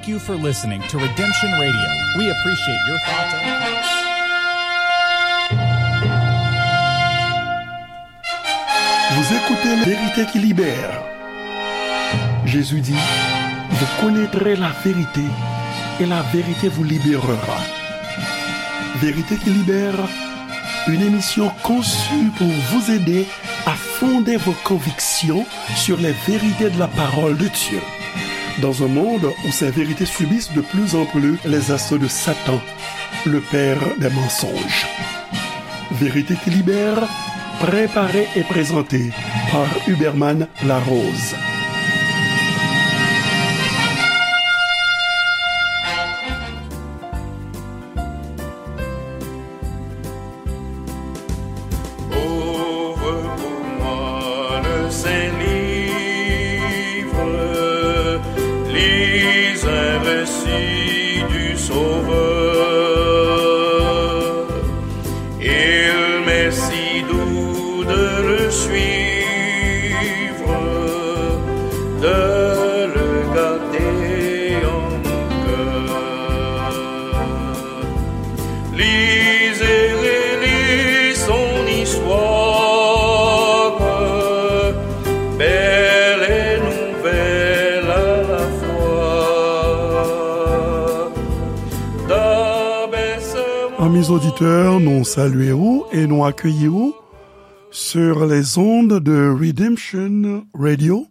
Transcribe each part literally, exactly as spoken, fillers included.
Thank you for listening to Redemption Radio. We appreciate your thoughts and Vous écoutez La Vérité qui libère. Jésus dit, vous connaîtrez la vérité et la vérité vous libérera. Vérité qui libère, une émission conçue pour vous aider à fonder vos convictions sur les vérités de la parole de Dieu. Dans un monde où ces vérités subissent de plus en plus les assauts de Satan, le père des mensonges. Vérité qui libère, préparée et présentée par Huberman Larose. Ouvre pour moi le saint livre, lis un récit du Sauveur. Il m'est si doux de le suivre, de le garder en mon cœur. Lis et relis son histoire, belle et nouvelle à la fois. Amis auditeurs, nou salye w e nou akeyi w sur les ondes de Redemption Radio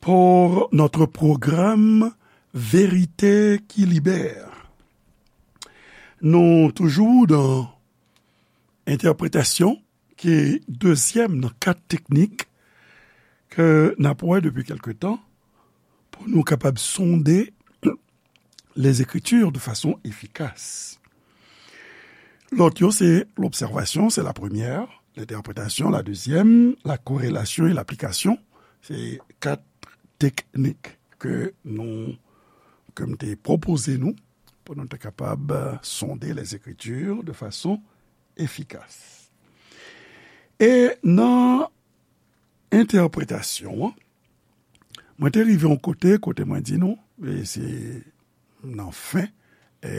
pour notre programme Vérité qui libère. Nou toujou nan entèpretasyon, ki dezyèm nan kat teknik ke n ap wè depi kèlke tan pou nou kapab sonde les Écritures de façon efficace. Lòt yo, se l'observation, c'est la première, l'interprétation, la deuxième, la corrélation et l'application, se kat teknik ke nou, ke m te pwopoze nou, pou nou te kapab, euh, sonde les Écritures de façon efficace. E nan entèpretasyon an, mwen te rive yon kote, kote mwen di nou, e se nan fen, e,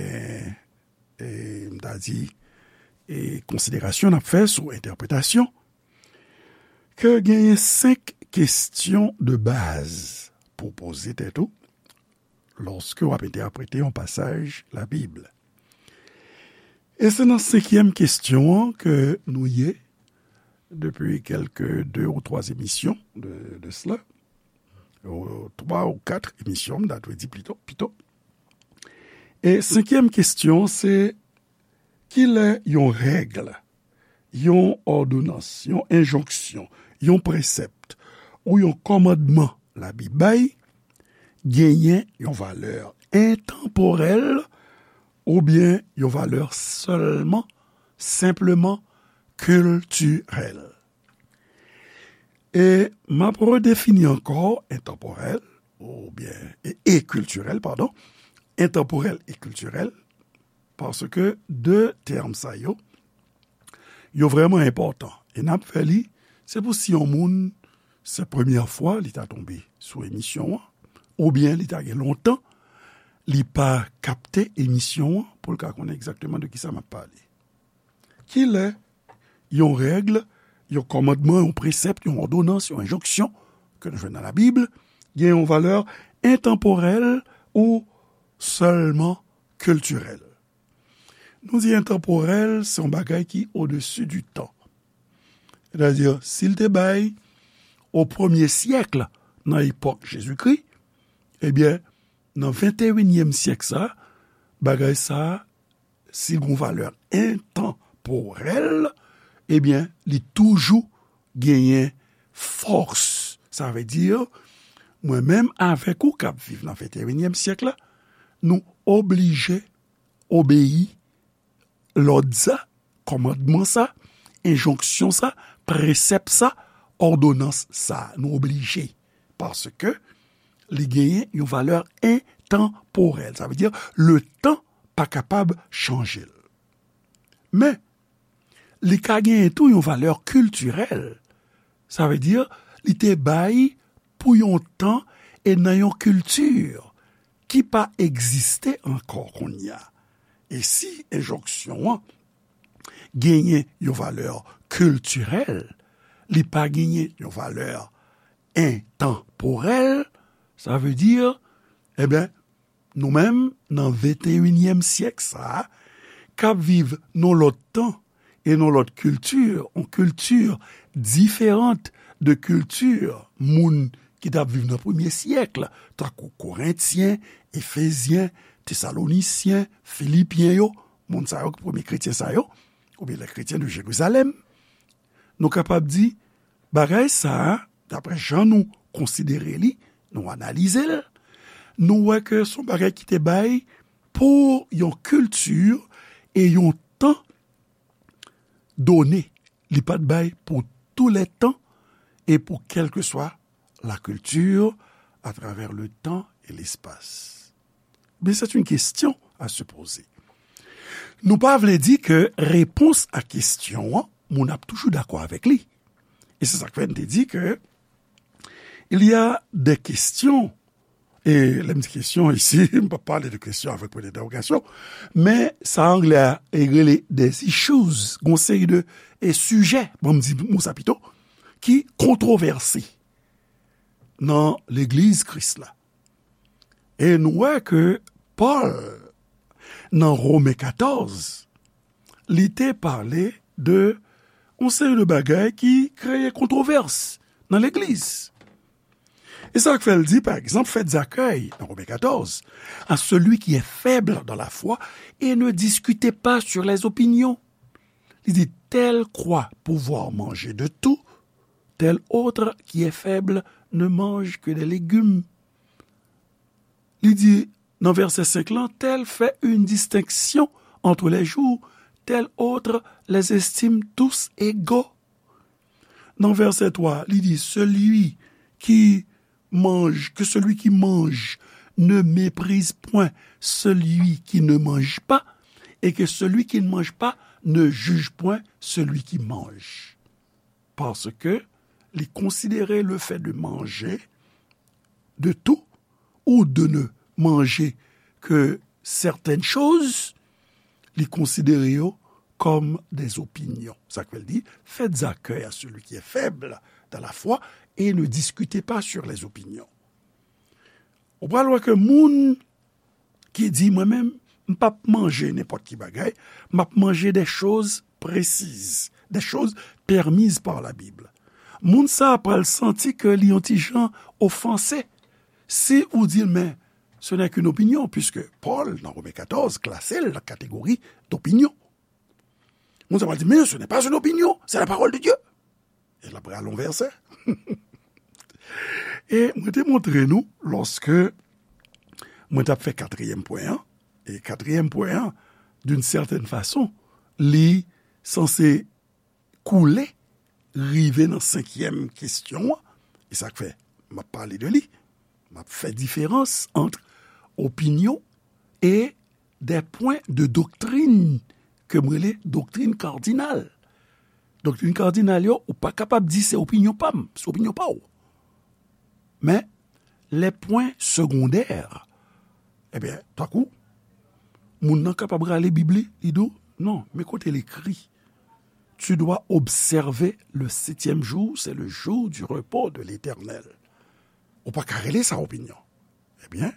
e m ta di, e konsiderasyon n ap fè sou entèpretasyon, ke genyen senk kesyon de baz pou poze tèt ou lòske w ap entèprete yon pasaj Labib. E se nan senkyèm kesyon an ke nou ye depi kèlke de ou twa emisyon de, de sela, ou twa ou kat emisyon, m ta dwe di pito, pito. E senkyèm kesyon, se kilè yon règ, yon òdonans, yon enjonksyon, yon presèp ou yon kòmandman Labib bay genyen yon valè entanporèl oubyen yon valè sèlman, senpleman kiltirèl. E m ap redefini ankò entanporèl oubyen, e, e kiltirèl, padon, entanporèl e kiltirèl, paske de tèm sa yo, yo vrèman enpòtan. E n ap fè li, se pou si yon moun, se premyè fwa li ta tonbe sou emisyon an, oubyen li ta gen lontan li pa kapte emisyon an pou l ka konnen egzakteman de kisa m ap pale. Kilè yon règ, yon kòmandman, yon presèp, yon òdonans, yon enjonksyon ke nou jwenn nan Labib gen yon valè entanporèl ou sèlman kiltirèl? Nou di entanporèl, se yon bagay ki odesi di tan. Sètadi, si l te bay o premye syèk, nan epòk Jezikri, ebyen, nan venteyinyèm syèk sa, bagay sa, si l gen yon valè entanporèl, ebyen, li toujou genyen fòs. Sa vle di, mwen menm avèk ou k ap viv nan venteyinyèm syèk la, nou oblije obeyi lòd sa, kòmandman sa, enjonksyon sa, presèp sa, òdonans sa. Nou oblije. Paske li genyen yon valè entanporèl. Sa vle di, letan pa kapab chanje l. Men, li ka genyen tou yon valè kiltirèl. Sa vle di, li te bay pou yon tan e nan yon kilti ki pa egziste ankò kounye a. E si enjonksyon an genyen yon valè kiltirèl, li pa genyen yon valè entanporèl, sa vle di, ebyen, nou menm, nan venteyinyèm syèk sa a, k ap viv nan lòt tan e nan lòt kilti, yon kilti diferan de kilti moun ki t ap viv nan premye syèk, tankou Korentyen, Efezyen, Tesalonisyen, Filipyen yo, moun sa yo, premye kretyen sa yo, oubyen les chrétiens de Jérusalem, nou kapab di, bagay sa a, daprè jan nou konsidere li, nou analize l, nou wè ke se yon bagay ki te bay pou yon kilti e yon tan done. Li pa t bay pou tou lè tan e pou kèlkeswa la kilti, atravè le tan e lespas. Men se yon kesyon a se poze. Nou pa vle di ke repons a kesyon an, moun ap toujou dakò avèk li. E se sa k fè n te di ke il y a des questions, e lè m di kesyon isi, m pa pale de kesyon avèk pwen dentèwogasyon, men sa anglè a rele des issues, gon seri de e sijè, bon, m di mo sa pito, ki kontwovèse nan legliz Kris la. E nou wè ke Pòl, nan Women katòz, li te pale de yon seri de bagay ki kreye kontwovès nan legliz. E sa k fè l di, pa egzanp, faites accueil, nan Women katòz, à celui qui est faible dans la foi et ne discutez pas sur les opinions. Li di, tel croit pouvoir manger de tout, tel autre qui est faible ne mange que des légumes. Li di, nan vèsè senk lan, tel fait une distinction entre les jours, tel autre les estime tous égaux. Nan vèsè twa, li di, celui qui mange, que celui qui mange ne méprise point celui qui ne mange pas, et que celui qui ne mange pas ne juge point celui qui mange. Parce que li konsidere le fait de manger de tout ou de ne manger que certaines choses, li konsidere yo comme des opinions. Sa k fè l di, faites accueil à celui qui est faible dans la foi et ne discutez pas sur les opinions. Ou pral wè ke moun ki di, mwen menm, m p ap manje nenpòt ki bagay, m ap manje des choses précises, des choses permises par la Bible. Moun sa a pral santi ke li yon ti jan ofanse si ou di l, men, ce n'est qu'une opinion, puisque Paul, dans Romains quatorze, klase l nan kategori d'opinion. Moun sa pral di, mais ce n'est pas une opinion, c'est la parole de Dieu. E l ap rale yon vèsè. E mwen te montre nou, lòske mwen t ap fè katriyèm pwen an, e katriyèm pwen an, d'une certaine façon, li sanse koule, rive nan senkyèm kesyon an, e sa k fè m ap pale de li, m ap fè diferans ant opinyon e des points de doctrine ke m rele doktrin kadinal. Doktrin kadinal yo, ou pa kapab di se opinyon pa m, se opinyon pa w. Men, les points secondaires, ebyen, tankou, moun nan kapab rale Bib li, li di w, non, men kote l ekri, tu dois observer le septième jour, c'est le jour du repos de l'Éternel. Ou pa ka rele sa opinyon. Ebyen,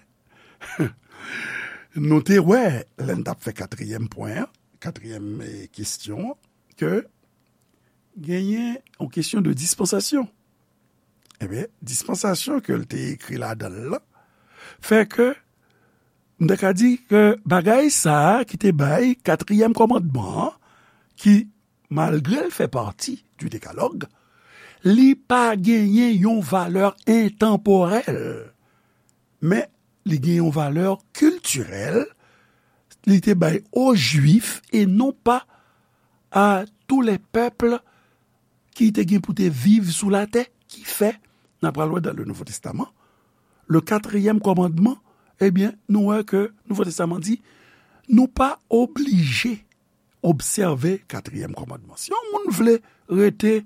nou te wè, lè n t ap fè katriyèm pwen an, katriyèm, eh, kesyon an, ke genyen yon kesyon de dispansasyon. Ebyen, dispansasyon ke l te ekri ladan l lan, fè ke, m ta ka di ke bagay sa a ki te bay katriyèm kòmandman an, ki, malgre l fè pati du Décalogue, li pa genyen yon valè entanporèl, men li gen yon valè kiltirèl, li te bay o Jwif e non pa à tous les peuples ki te gen pou te viv sou latè, ki fè, n a pral wè dans le Nouveau Testament, le quatrième commandement, ebyen, nou wè ke Nouvo Testaman di, nou pa oblije obsève katriyèm kòmandman. Si yon moun vle rete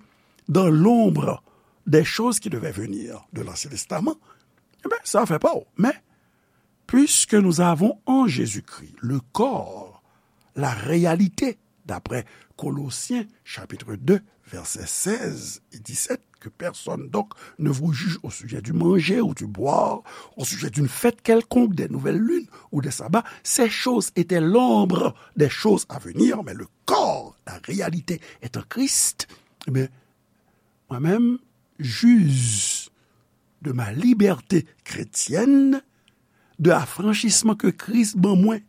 dans l'ombre des choses qui devaient venir de l'Ancien Testament, ebyen, sa afè pa w. Men, Puisque nous avons en Jésus-Christ le corps, la réalité, d'après Colossiens chapitre deux, versets seize et dix-sept, que personne donc ne vous juge au sujet du manger ou du boire, au sujet d'une fête quelconque, des nouvelles lunes ou des sabbats. Ces choses étaient l'ombre des choses à venir, mais le corps, la réalité est en Christ. Eh bien, moi-même, juge de ma liberté chrétienne, de affranchissement que Christ ban mwen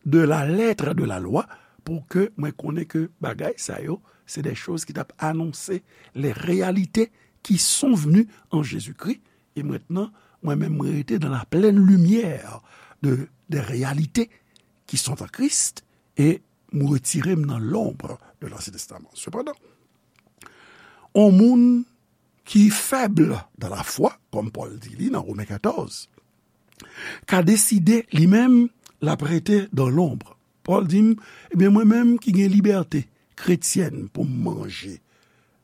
de la lettre de la loi, pou ke mwen konnen ke bagay sa yo, se de choz ki t ap anonse les réalités qui sont venues en Jésus-Christ, et maintenant, mwen menm, mwen rete dans la pleine lumière de, des réalités qui sont en Christ, et mwen retire m nan l'ombre de l'Ancien Testament. Sepandan, on moun ki fèb dan lafwa, kòm Pòl di li nan Women katòz, ka deside li menm l ap rete dan lonb. Pòl di m, ebyen, mwen menm ki gen libète kretyèn pou m manje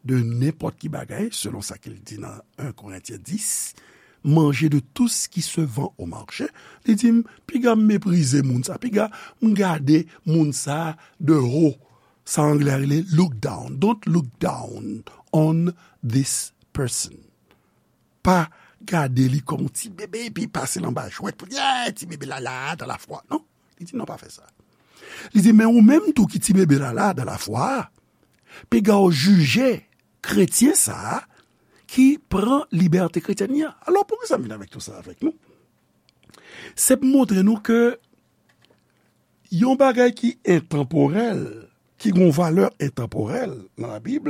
de nenpòt ki bagay, selon sa ke l di nan en Korentyen dis, manje de tout ce qui se vend au marché, li di m, piga m meprize moun sa, piga m gade moun sa de ho. Sa anglè a rele look down. Don't look down on this person. Pa gade li kòm yon ti bebe epi pase l anba jwèt pou di, "Ey, ti bebe la la, dan lafwa." Non, li di, "Non, pa fè sa." Li di, "Men ou menm tou ki ti bebe la la, dan lafwa a, piga w jije kretyen sa a ki pran libète kretyèn li an." Alò, poukisa m vin avèk tout sa avèk nou? Se pou montre nou ke yon bagay ki entanporèl, ki gen yon valè entanporèl nan Labib,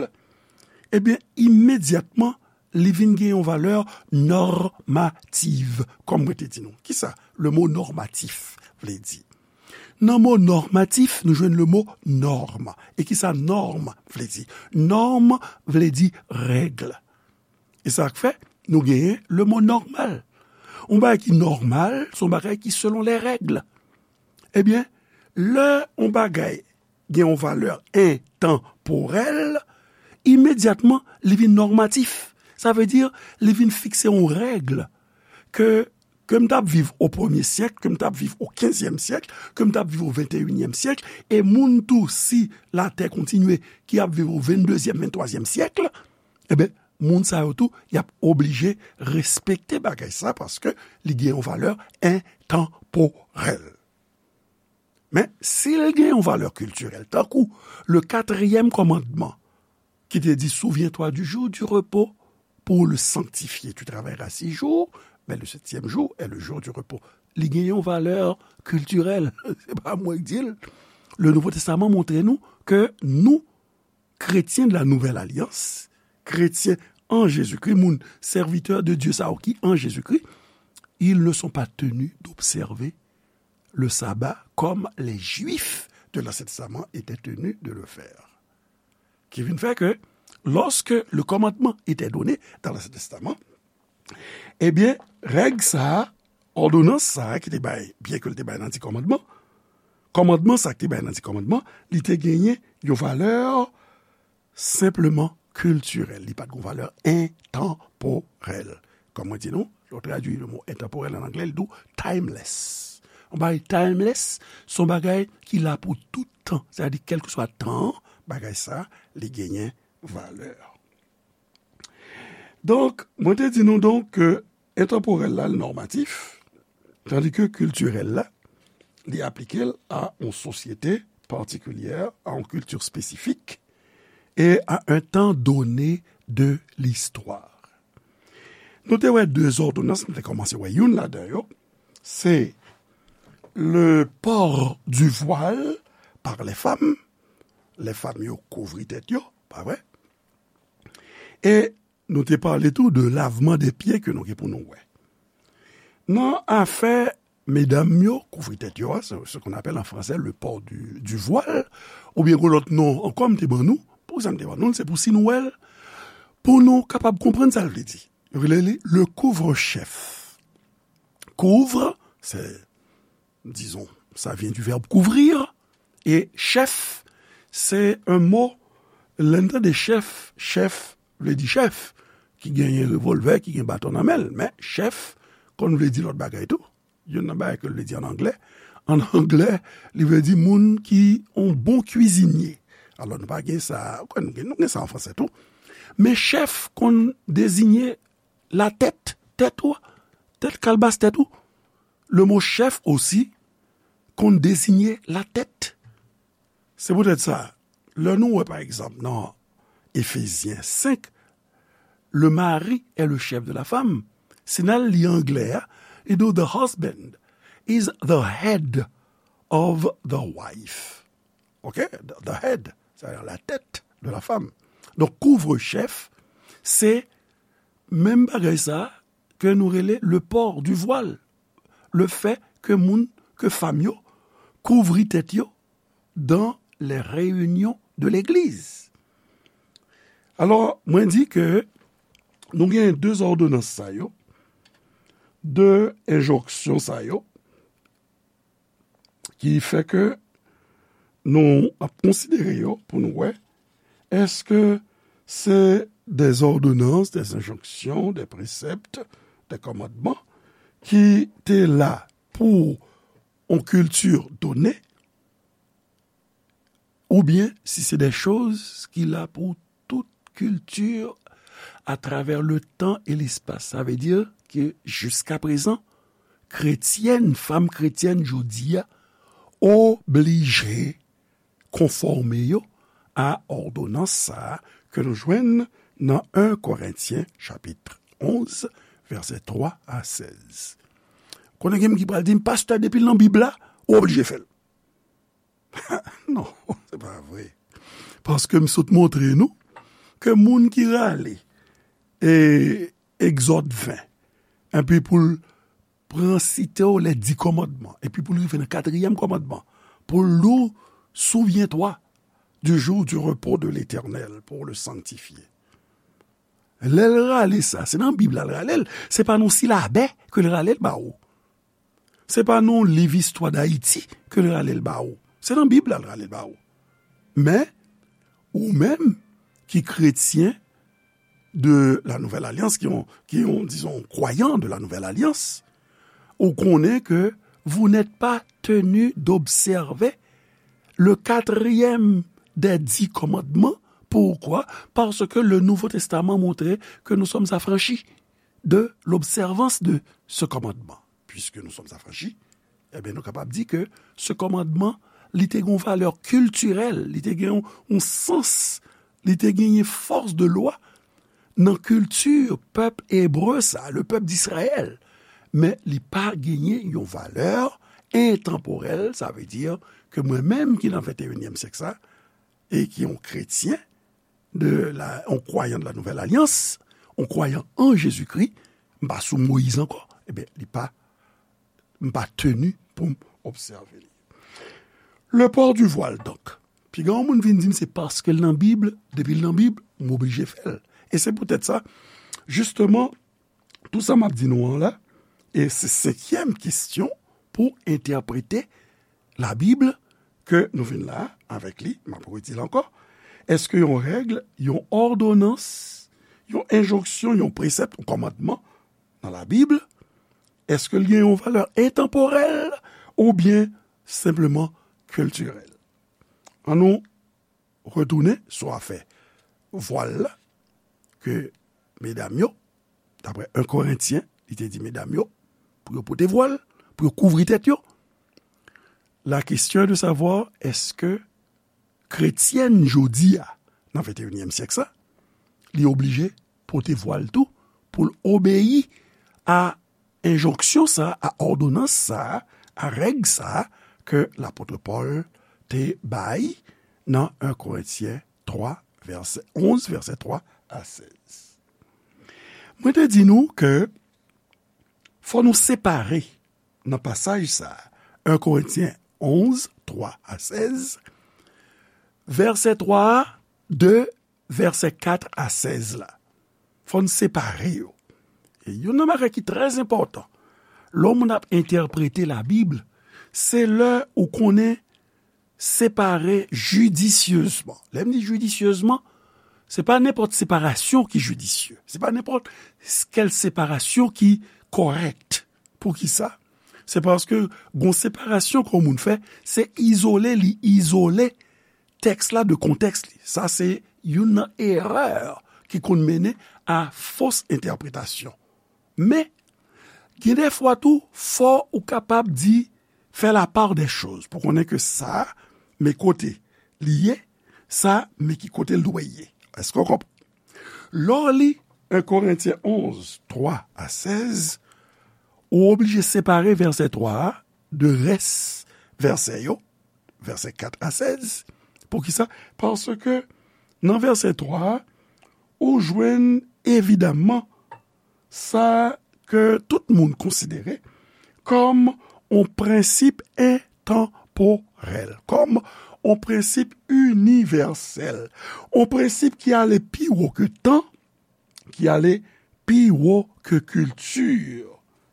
ebyen, imedyatman, li vin gen yon valè nòmativ, kòm mwen te di nou. Kisa le mo nòmatif vle di? Nan mo nòmatif, nou jwenn le mo nòm. E kisa nòm vle di? Nòm vle di règ. E sa k fè nou genyen le mo nòmal. Yon bagay ki nòmal, se yon bagay ki selon les règles. Ebyen, lè yon bagay gen yon valè entanporèl, imedyatman, li vin nòmatif. Sa vle di, li vin fikse yon règ ke, ke m t ap viv o premye syèk, ke m t ap viv o kenzyèm syèk, ke m t ap viv o venteyinyèm syèk, e moun tou, si latè kontinye, ki ap viv o venndezyèm, venntwazyèm syèk, ebyen, moun sa yo tou, y ap oblije respekte bagay sa, paske li gen yon valè entanporèl. Men, si l gen yon valè kiltirèl, tankou le quatrième commandement, ki te di, "Souviens-toi du jour du repos pour le sanctifier. Tu travailleras six jours, mais le septième jour est le jour du repos." Li gen yon valè kiltirèl. Se pa mwen ki di l. Le Nouveau Testament montre nou ke nou, chrétiens de la nouvelle alliance, chrétiens en Jésus-Christ, moun serviteur de Dieu sa yo ki en Jésus-Christ, ils ne sont pas tenus d'observer le sabbat comme les Juifs de l'Ancien Testament étaient tenus de le faire. Qui vient faire que, lorsque le commandement était donné dans l'Ancien Testament, ebyen, règ sa a, òdonans sa a ki te bay, byen ke l te bay nan Di Kòmandman, kòmandman sa a ki te bay nan Di Kòmandman, li te genyen yon valè senpleman kiltirèl. Li pa t gen yon valè entanporèl. Kòm mwen di nou, lè w tradui le mo entanporèl an anglè, li di w timeless. Yon bagay timeless, se yon bagay ki la pou tout tan. Sètadi, kèlkeswa tan an, bagay sa a, li genyen valè. Donk, mwen te di nou donk ke entanporèl la, l nòmatif, tandi ke kiltirèl la, li aplike l a yon sosyete patikilyè, a yon kilti espesifik, e a un temps donné de l'histoire. Nou te wè de zòdonans, nou te kòmanse wè youn ladan yo, se le port du voile par les femmes, lè fanm yo kouvri tèt yo, pa vre? E nou te pale tou de lavman de pye ke nou gen pou nou wè. Nan afè medam yo kouvri tèt yo a, ce, ce qu'on appelle en français le port du, du voile, oubyen gon lòt non ankò m te ban nou, poukisa m te ban nou l, se pou si nou wè l, pou nou kapab konprann sa l vle di. Yo rele li le couvre-chef. Couvre, c'est, disons, ça vient du verbe couvrir, et chef, c'est un mot, lè n tande chèf, chèf vle di chèf, ki genyen revòlvè, ki gen baton nan men l, men chèf konn vle di lòt bagay tou. Youn nan bagay ke l vle di an anglè. An anglè, li vle di moun ki yon bon kwizinye. Alò, nou pa gen sa, kwè nou gen, nou gen sa an fransè tou. Men chèf konn deziye latèt, tèt ou, tèt kalbas tèt ou. Le mo chèf osi konn deziye latèt. Se poutèt sa, lè nou wè, pa egzanp, nan Efezyen senk, le mari est le chef de la femme. Si n al li anglè a, li di w, the husband is the head of the wife. Ok? The, the head, c'est-à-dire la tête de la femme. Donk, kouvre chèf, se menm bagay sa ke nou rele le port du voile. Le fait que moun, ke fanm yo kouvri tèt yo dans les réunions de l'église. Alò, mwen di ke nou gen de zòdonans sa yo, de enjonksyon sa yo, ki fè ke nou ap konsidere yo pou nou wè, èske se de zòdonans, de enjonksyon, de presèpt, de kòmandman ki te la pou yon kilti done, oubyen si se de choz ki la pou tout kilti atravè le tan e lespas. Sa vle di ke jiska prezan, kretyèn, fanm kretyèn jodi a, oblije konfòme yo a òdonans sa a ke nou jwenn nan en Korentyen chapit onz, vèsè twa a sèz. Konnen gen moun ki pral di m, pastè, depi l nan Bib la, ou oblije fè l. Non, se pa vre. Paske m sot montre nou ke moun ki rale e, Egzòd ven, epi pou l pran site w les dix commandements, epi pou l rive nan katriyèm kòmandman, pou l di w, souviens-toi du jour du repos de l'Éternel, pour le sanctifier. Lè l rale sa, se nan Bib la l rale l, se pa nan silabè ke l rale l ba ou. Se pa nan liv Istwa Dayiti ke l rale l ba ou. Se nan Bib la l rale l ba ou. Men, ou menm ki kretyen de la Nouvelle Alliance, ki yon, ki yon, disons, croyant de la Nouvelle Alliance, ou konnen ke vous n'êtes pas tenu d'observer le quatrième des dix commandements. Pourquoi? Parce que le Nouveau Testament montre que nous sommes affranchis de l'observance de ce commandement. Puisque nous sommes affranchis, ebyen, nou kapab di ke se kòmandman, li te gen yon valè kiltirèl, li te gen yon, yon sans, li te genyen fòs de lwa nan kilti pèp ebre sa, le pèp d'Israël. Men li pa genyen yon valè entanporèl, sa vle di ke mwen menm ki nan venteyinyèm syèk sa, e ki yon kretyen, de la, yon kwayan de la Nouvelle Alliance, yon kwayan an Jezikri, m pa sou Moyiz ankò, ebyen, li pa, m pa tenu pou m obsève li. Le port du voile, donk. Piga yon moun vin di m se paske l nan Bib, depi l nan Bib, m oblije fè l. E se poutèt sa, jisteman, tou sa m ap di nou an la, e se senkyèm kesyon pou entèprete Labib ke nou vin la avèk li, m ap redi l ankò. Èske yon règ, yon òdonans, yon enjonksyon, yon presèp, yon kòmandman nan Labib, èske l gen yon valè entanporèl oubyen senpleman kiltirèl? Ann nou retounen sou afè vwal la, ke medam yo, daprè en Korentyen, li te di medam yo, pou yo pote vwal, pou yo kouvri tèt yo. La question est de savoir, èske kretyèn jodi a, nan venteyinyèm syèk sa, li oblije pote vwal tou pou l obeyi a enjonksyon sa a, a òdonans sa a, a règ sa a ke lapot Pòl te bay nan en Korentyen twa, vèsè onz, vèsè twa a sèz. Mwen te di nou ke fò nou separe nan pasaj sa a, en Korentyen onz, twa a sèz, vèsè twa a de vèsè kat a sèz la. Fò n separe yo. E youn nan bagay ki trè enpòtan, lè yon moun ap entèprete Labib, se lè ou konnen separe jidisyezman. Lè m di jidisyezman, se pa nenpòt separasyon ki jidisye. Se pa nenpòt kèl separasyon ki kòrèk. Poukisa? Se paske gon separasyon ke yon moun fè, se izole li izole tèks la de kontèks li. Sa se youn nan erè ki konn mennen a fos entèpretasyon. Men, gen de fwa tou, fò ou kapab di, fè la part des choses, pou konnen ke sa, men kote li ye, sa, men ki kote l dwe ye. Èske w konprann? Lè w li en Korentyen onz, twa a sèz, ou oblije separe vèsè twa a de rès vèsè yo, vèsè kat a sèz. Poukisa? Paske nan vèsè twa a, ou jwenn evidaman sa ke tout moun konsidere kòm yon prensip entanporèl, kòm yon prensip inivèsèl, yon prensip ki ale pi wo ke tan, ki ale pi wo ke kilti.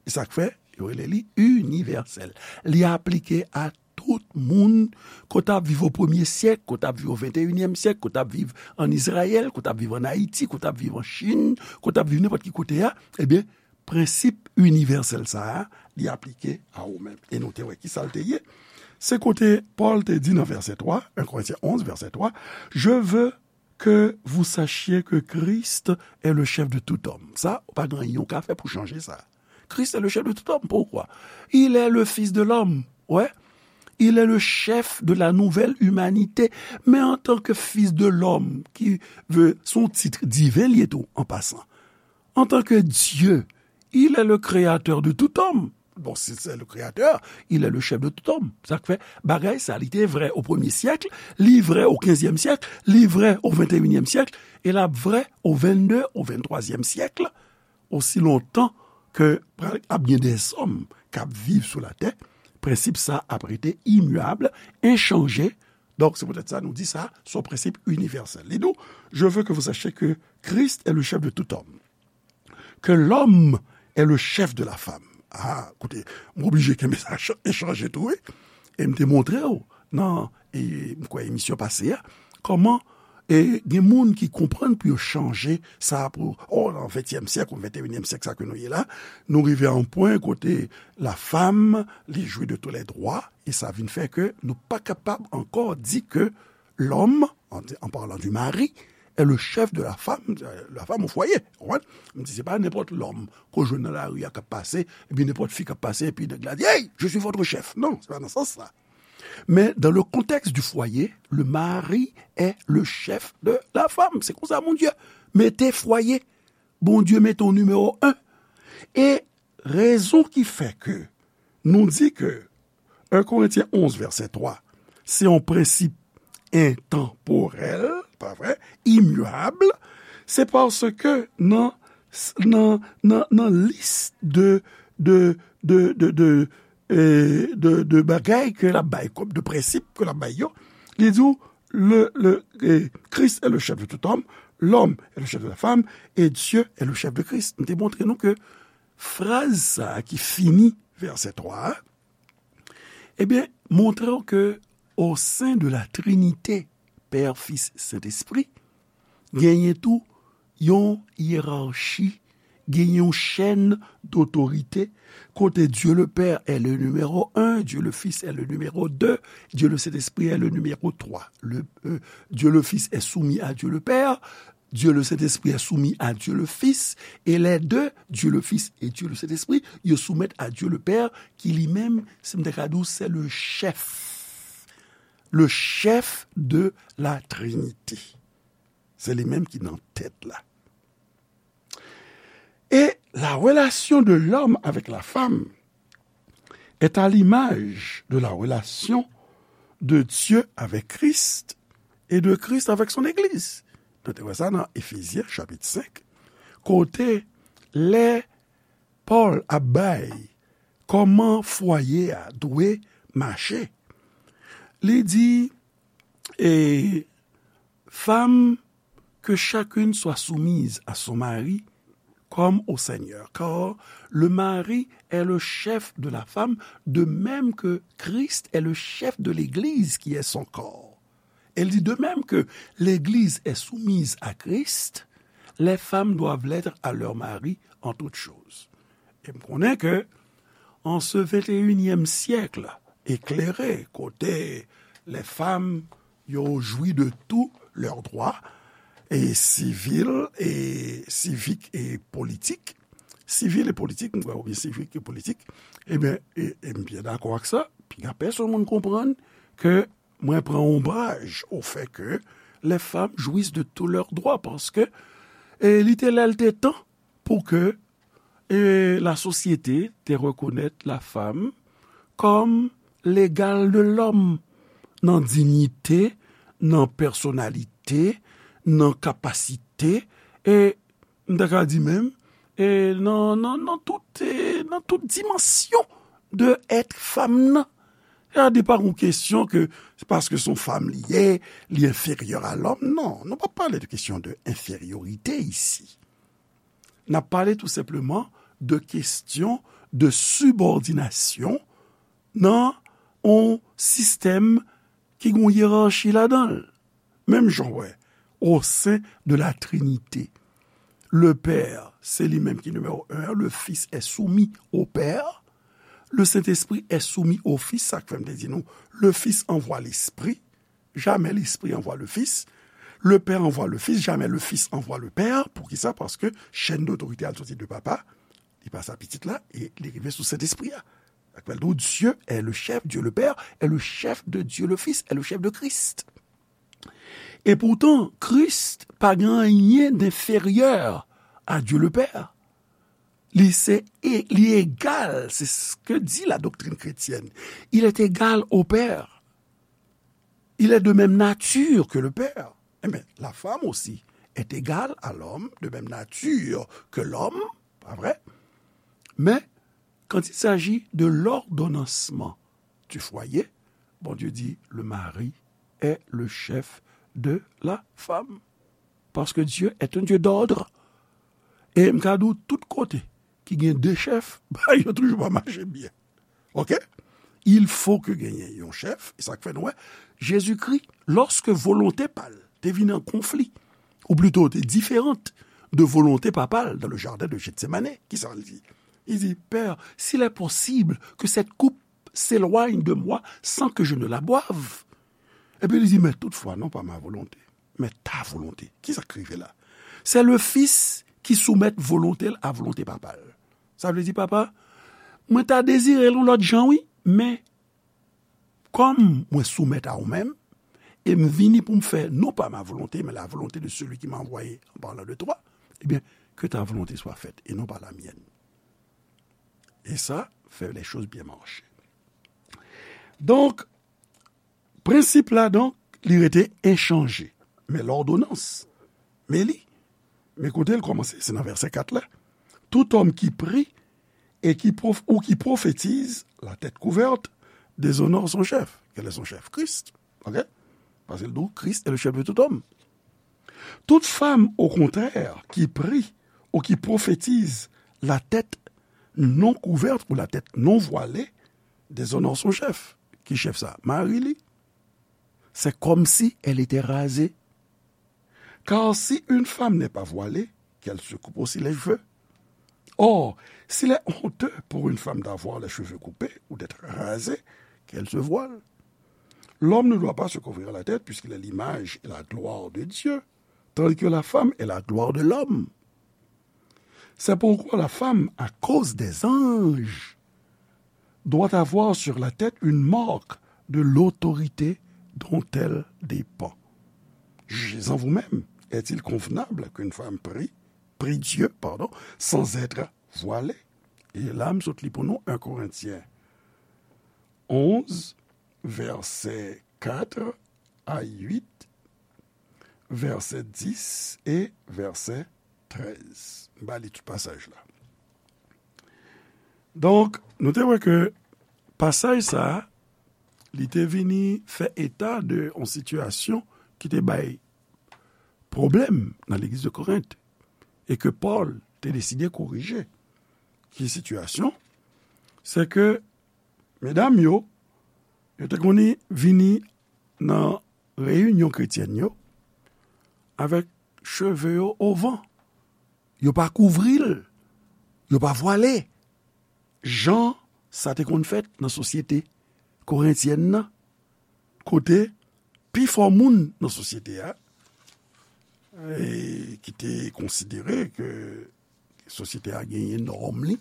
E sa k fè yo rele li inivèsèl. Li aplike a tout moun, ke w t ap viv o premye syèk, ke w t ap viv o venteyinyèm syèk, ke w t ap viv ann Izrayèl, ke w t ap viv ann Ayiti, ke w t ap viv an Chin, ke w t ap viv nenpòt ki kote a, ebyen, prensip inivèsèl sa a, li aplike a ou menm. E nou te wè ki sa l te ye. Se kote Pòl te di nan vèsè twa, en Korentyen onz, vèsè twa, Je veux que vous sachiez que Christ est le chef de tout homme. Sa, ou pa gen anyen ou ka fè pou chanje sa. Christ est le chef de tout homme. Pourquoi? Il est le fils de l'homme. Ouais. Il est le chef de la nouvelle humanité. Men antanke fils de l'homme, ki vle, se yon tit diven li ye tou, an pasan. Antanke Dye, il est le créateur de tout homme. Bon, si c'est le créateur, il est le chef de tout homme. Sa k fè, bagay sa, li te vrè o premye syèk, li vrè o kenzyèm syèk, li vrè o venteyinyèm syèk, e l ap vrè o vennde, o venntwazyèm syèk, osi lontan ke pral ap gen dèzòm k ap viv sou latè, prensip sa ap rete imiyab, enchanje. Donk, se poutèt sa nou di sa, se yon prensip inivèsèl. Li di w, Je veux que vous sachiez que Christ est le chef de tout homme, que l'homme est le chef de la femme. Ah, koute, m oblije kenbe sa ch-, echanje tou, wi. E m te montre w nan, e, m kwè emisyon pase a, kòman, e, gen moun ki konprann pou yo chanje sa pou, oh, nan ventyèm syèk ou venteyinyèm syèk, sa ke nou ye la, nou rive a yon pwen kote la femme, li jwi de tous les droits, e sa vin fè ke nou pa kapab ankò di ke l'homme, en, en parlant du mari, est le chef de la femme, euh, la femme au foyer. Ou konprann? M di, se pa nenpòt lòm ke w jwenn nan lari a k ap pase, epi nenpòt fi k ap pase, epi nèg la di, Hey, je suis votre chef. Non, se pa nan sans sa. Mais dans le contexte du foyer, le mari est le chef de la femme. Se konsa Bondye mete fwaye. Bondye mete w nimewo en. E rezon ki fè ke nou di ke en Korentyen onz, vèsè twa, se yon prensip entanporèl, pa vre, imiyab, se paske nan, nan, nan, nan lis de, de, de, de, de, e, de, de bagay ke l ap bay, kòm de prensip ke l ap bay yo, li di w, le, le, e, Christ est le chef de tout homme, l'homme est le chef de la femme, et Dieu est le chef de Christ. M te montre nou ke fraz sa a ki fini vèsè twa a, ebyen, montre w ke au sein de la Trinité, Pè, Fis, Sentespri, genyen tou yon yerachi, genyen yon chèn dotorite, kote Dieu le Père est le numéro un, Dieu le Fils est le numéro deux, Dieu le Saint-Esprit est le numéro trois. Le, euh, Dieu le Fils est soumis à Dieu le Père, Dieu le Saint-Esprit est soumis à Dieu le Fils, et les deux, Dieu le Fils et Dieu le Saint-Esprit, yo soumèt a Dieu le Père, ki li menm, si m te ka di w, se le chèf. Le chèf de la Trinité. Se li menm ki nan tèt la. Et la relation de l'homme avec la femme est à l'image de la relation de Dieu avec Christ et de Christ avec son Église. Nou te wè sa nan Efezyen, chapit senk, kote lè Pòl ap bay kòman fwaye a dwe mache, li di, e, Femmes, que chacune soit soumise à son mari comme au Seigneur, car le mari est le chef de la femme, de même que Christ est le chef de l'Église qui est son corps. Elle dit, de même que l'Église est soumise à Christ, les femmes doivent l'être à leur mari en toutes choses. E m konnen ke en ce vingt et unième siècle éclairé, kote les femmes yo jwi de tous leurs droits, et civils, et civiques et politiques, sivil e politik, m kwè, oubyen sivik e politik, ebyen, e, e m byen dakò ak sa. Piga pèsonn moun konprann ke mwen pran onbraj au fait que les femmes jouissent de tous leurs droits, paske, e, li te lè l te tan pou ke, e, la sosyete te rekonèt la femme comme l'égal de l'homme nan diyite, nan pèsonalite, nan kapasite, e m ta ka di menm, e nan, nan, nan tout, e nan tout dimansyon de èt fanm nan. Sa pa yon kesyon ke se paske se yon fanm li ye, li enferyè a lòm. Non, nou pa pale de kesyon de enferyorite isi. N ap pale tou senpleman de kesyon de sibòdinasyon nan yon sistèm ki gen yon yerachi ladan l. Menm jan w wè, au sein de la Trinité, le Père, se li menm ki nimewo en, le Fils est soumis au Père, le Saint-Esprit est soumis au Fils, sa k fè m te di nou, le Fils envoie l'Esprit, jamais l'Esprit envoie le Fils, le Père envoie le Fils, jamais le Fils envoie le Père. Poukisa? Paske chèn dotorite a soti de Papa, li pase a Pitit la, e li rive sou Sentespri a. Sa k fè l di w, Dieu est le chef, Dieu le Père est le chef de Dieu le Fils, est le chef de Christ. E poutan, Kris pa gen anyen d'inférieur à Dieu le Père. Li se, e, li egal, c'est ce que dit la doctrine chrétienne. Il est égal au Père. Il est de même nature que le Père. Eh bien, la femme aussi est égale à l'homme, de même nature que l'homme, pas vrai? Mais quand il s'agit de l'ordonnancement du foyer, Bondye di, le mari est le chef de la femme. Parce que Dieu est un Dieu d'ordre. E m ka di w tout kote ki gen de chèf, bagay yo toujou pa mache byen. Oke? Il faut que genyen yon chèf, e sa k fè nou wè, Jezikri, lòske volonte pa l te vin an konfli, ou plito te diferan de volonte Papa l dans le jardin de Gethsemane, kisa l di? Li di, Père, s'il est possible que cette coupe s'éloigne de moi sans que je ne la boive. Epi li di, mais toutefois, non pas ma volonté, mais ta volonté. Kisa k rive la? C'est le Fils qui soumet volonté l a volonté Papa l. Sa vle di, Papa, mwen ta dezire l yon lòt jan, wi, men kòm mwen soumèt a ou menm, e m vini pou m fè non pas ma volonté, mais la volonté de celui qui m'a envoyé en parlant de toi, eh bien, que ta volonté soit faite et non pas la mienne. E sa fè les choses bien marcher. Donk, prensip la, donk, li rete enchanje. Men lòdonans, men li, men kote l kòmanse, se nan vèsè kat la. Tout homme qui prie et qui prof-, ou qui prophétise, la tête couverte, déshonore son chef. Quel est son chef? Christ. Ok? Paske l di w, Christ est le chef de tout homme. Toute femme, au contraire, qui prie ou qui prophétise la tête non couverte ou la tête non voilée déshonore son chef. Ki chèf sa? Mari li. C'est comme si elle était rasée. Car si une femme n'est pas voilée, qu'elle se coupe aussi les cheveux. Or, s'il est honteux pour une femme d'avoir les cheveux coupés ou d'être rasée, qu'elle se voile. L'homme ne doit pas se couvrir la tête puisqu'il est l'image et la gloire de Dieu, tandis que la femme est la gloire de l'homme. C'est pourquoi la femme, à cause des anges, doit avoir sur la tête une marque de l'autorité dont elle dépend. Jugez-en vous-même. Est-il convenable qu'une femme prie, prie Dieu, pardon, sans être voilée? E la, m sot li pou nou, un Corinthiens onze, vèsè kat a uit, vèsè dis e vèsè trèz. M ba li tout pasaj la. Donk, nou te wè ke pasaj sa a, li te vini fè eta de yon sitiyasyon ki te bay pwoblèm nan legliz de Korent, e ke Pòl te deside korije. Ki sitiyasyon? Se ke medam yo, yo te konn vini nan reyinyon kretyèn yo avèk cheve yo o van. Yo pa kouvri l, yo pa vwale. Jan sa te konn fèt nan sosyete korentyèn nan, kote pifò moun nan sosyete a, e, ki te konsidere ke sosyete a genyen nòm li,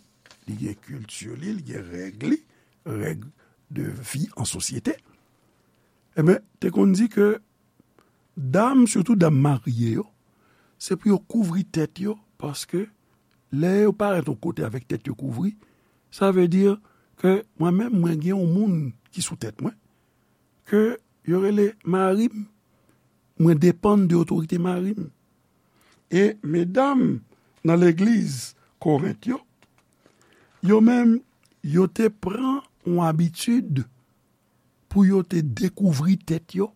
li gen kilti li, li gen règ li, règ de vi an sosyete, enben, te konn di ke dam, sitou dam marye yo, se pou yo kouvri tèt yo, paske lè yo parèt yon kote avèk tèt yo kouvri, sa vle di ke mwen menm, mwen gen yon moun ki sou tèt mwen, ke yo rele mari m, mwen depann de otorite mari m. E medam nan legliz Korent yo, yo menm, yo te pran yon abitid pou yo te dekouvri tèt yo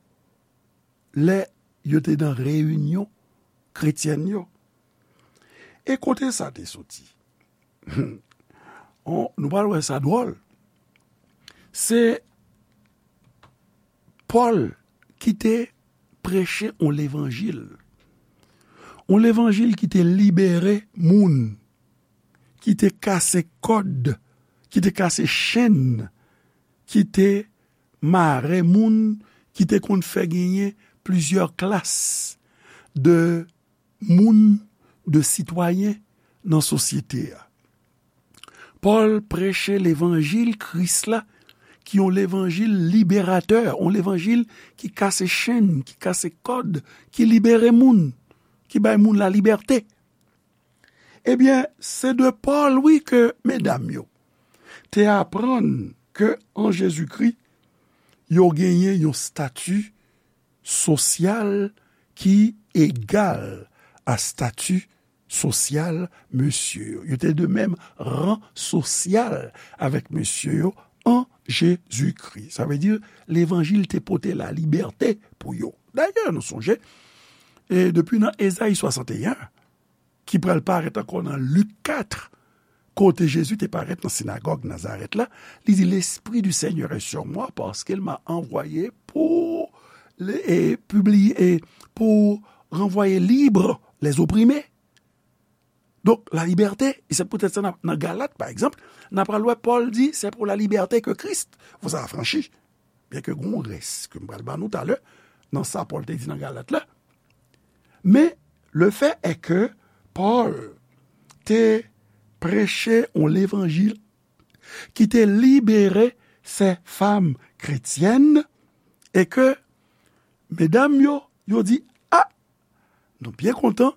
lè yo te nan reyinyon kretyèn yo. E kote sa te soti? On, nou pral wè sa dwòl. Se Pòl ki te preche yon levanjil. Yon levanjil ki te libere moun, ki te kase kòd, ki te kase chenn, ki te mare moun, ki te konn fè genyen plizyè klas de moun, de sitwayen nan sosyete a. Pòl preche levanjil Kris la, ki yon levanjil liberatè, yon levanjil ki kase chenn, ki kase kòd, ki libere moun, ki bay moun lalibète. Ebyen, se de Pòl, wi, ke medam yo te aprann ke an Jezikri, yo genyen yon stati sosyal ki egal a stati sosyal mesye yo. Yo te de menm ran sosyal avèk mesye yo an Jezikri. Sa vle di, levanjil te pote lalibète pou yo. Dayè, nou sonje, e depi nan Ezayi swasanteyen, ki pral parèt ankò nan Lik kat, kote Jezi te parèt nan sinagòg Nazarèt la, li di, L'Esprit du Seigneur est sur moi, parce qu'il m'a envoyé pour, e, publier, e, pour renvoyer libre les opprimés. Donk, la liberté, e se poutèt sa nan, nan Galat, pa egzanp, n a pral wè Pòl di, c'est pour la liberté que Christ vous a affranchis. Byenke gen yon rès ke m pral ba nou talè, nan sa Pòl te di nan Galat la. Men, le fait est que Pòl te preche yon levanjil ki te libere sè fanm kretyèn e ke medam yo, yo di, a, nou byen kontan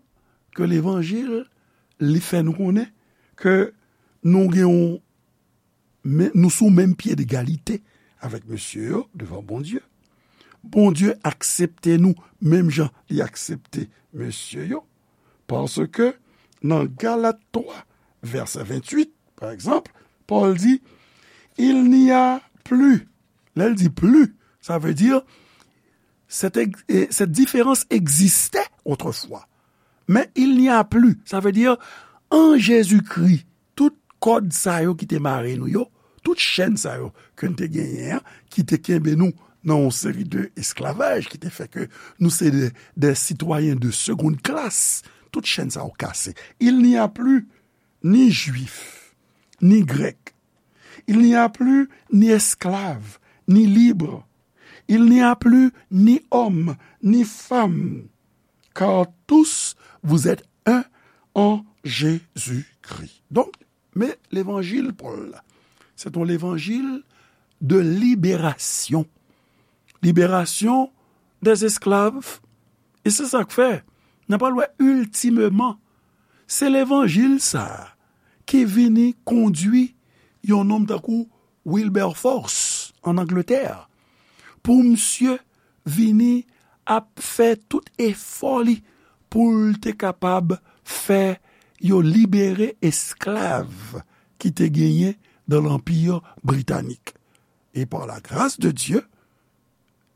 ke levanjil li fè nou konnen ke nou gen yon men, nou sou menm pye degalite avèk mesye yo devan Bondye. Bondye aksepte nou menm jan li aksepte mesye yo. Paske nan Galat twa, vèsè venntuit, pa egzanp, Pòl di, Il n'y a plus. Lè l di plus, sa vle di cette, ex- eh, cette différence existait autrefois. Mais il n'y a plus. Sa vle di, an Jezikri, tout kòd sa yo ki te mare nou yo, tout chèn sa yo ke n te genyen an, ki te kenbe nou nan yon seri de esklavaj, ki te fè ke nou se de, de sitwayen de seconde classe, tout chèn sa yo kase. Il n'y a plus ni Juif, ni Grèk. Il n'y a plus ni esclave, ni libre. Il n'y a plus ni homme, ni femme, car tous vous êtes un en Jésus-Christ. Donk, men levanjil Pòl la, se yon levanjil de liberasyon. Liberasyon des esclaves. E se sa k fè, n a pral wè iltimeman, se levanjil sa a ki vini kondui yon nonm tankou Wilberforce an Angletè, pou misye vini ap fè tout efò li pou l te kapab fè yo libere esklav ki te genyen dans l'Empire britannique. Et par la grâce de Dieu,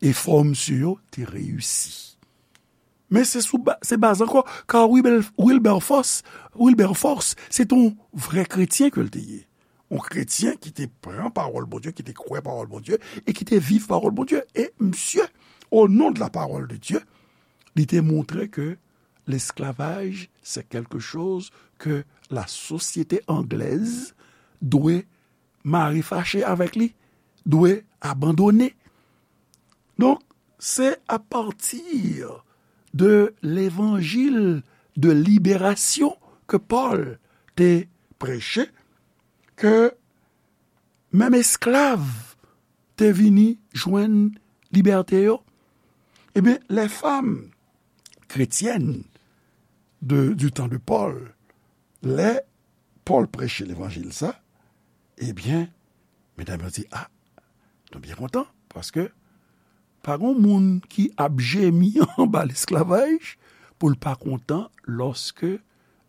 efò misye yo te reyisi. Men se sou ba- se baz ankò, ka Wilber- Wilberforce, Wilberforce, se te yon vrè kretyen ke l te ye. Yon kretyen ki te pran pawòl Bondye, ki te kwè pawòl Bondye, e ki te viv pawòl Bondye. E misye, au nom de la parole de Dieu, li te montre ke l'esclavage, c'est quelque chose que la société anglaise doit mari fache avèk li dwe abandone. Donk, se apati de levanjil de liberasyon ke Pòl te preche ke menm esklav te vini jwenn libète yo. Ebyen, les femmes chrétiennes de, du temps de Paul, lè Pòl preche levanjil sa, ebyen, medam yo di, a, nou byen kontan, paske pa gen moun ki ap jemi anba lesklavaj pou l pa kontan lòske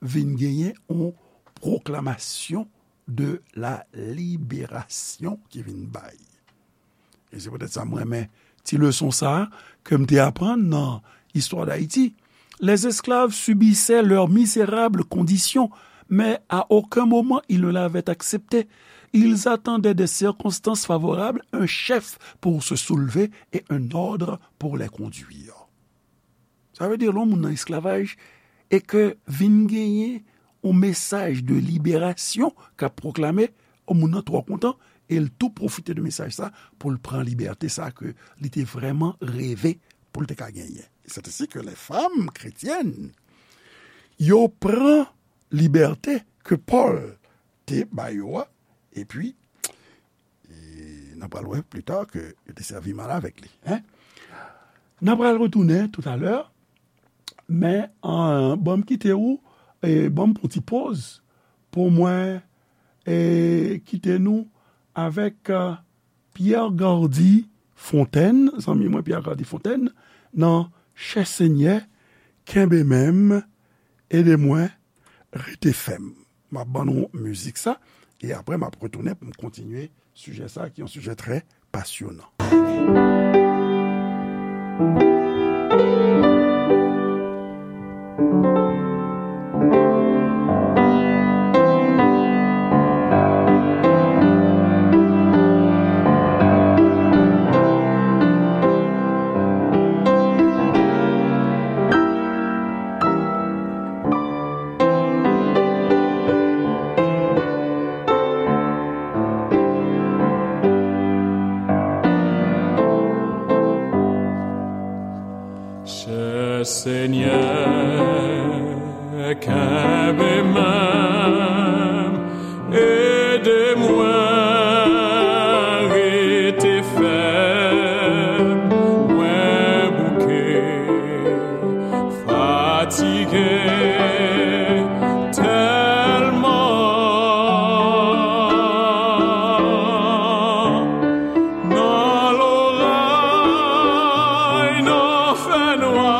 vin genyen yon pwoklamasyon de la liberasyon ki vin bay. E se poutèt sa mwen renmen ti leson sa a ke m te aprann nan Histoire d'Haïti. Les esclaves subissaient leur misérable condition, mais à aucun moment ils ne l'avaient acceptée. Ils attendaient des circonstances favorables, un chef pour se soulever et un ordre pour les conduire. Sa vle di, lè yon moun nan esklavaj e ke vin genyen yon mesaj de liberasyon k ap pwoklame, yon moun nan twò kontan, e l tou pwofite de mesaj sa pou l pran libète sa ke li te vrèman reve pou l te ka genyen. C'est ainsi que les femmes chrétiennes, yo pran libète ke Pòl te ba yo a, epi, e n a pral wè pli ta ke yo te sèvi mal avèk li. Hein? N a pral retounen toutalè, men, euh, ban m kite ou, e ban m pran ti poz pou mwen, e kite nou avèk, euh, Pierre Gardy Fontaine, zanmi mwen Pierre Gardy Fontaine, nan Chè Senyè, kenbe menm, ede mwen, rete fèm. M ap ban nou mizik sa, e apre m ap retounen pou m kontinye sijè sa, ki yon sijè trè pasyonan. Chè Senyè, kenbe men m, ede mwen rete fèm, mwen bouke, fatige tèlman. Nan loray, nan fènwa,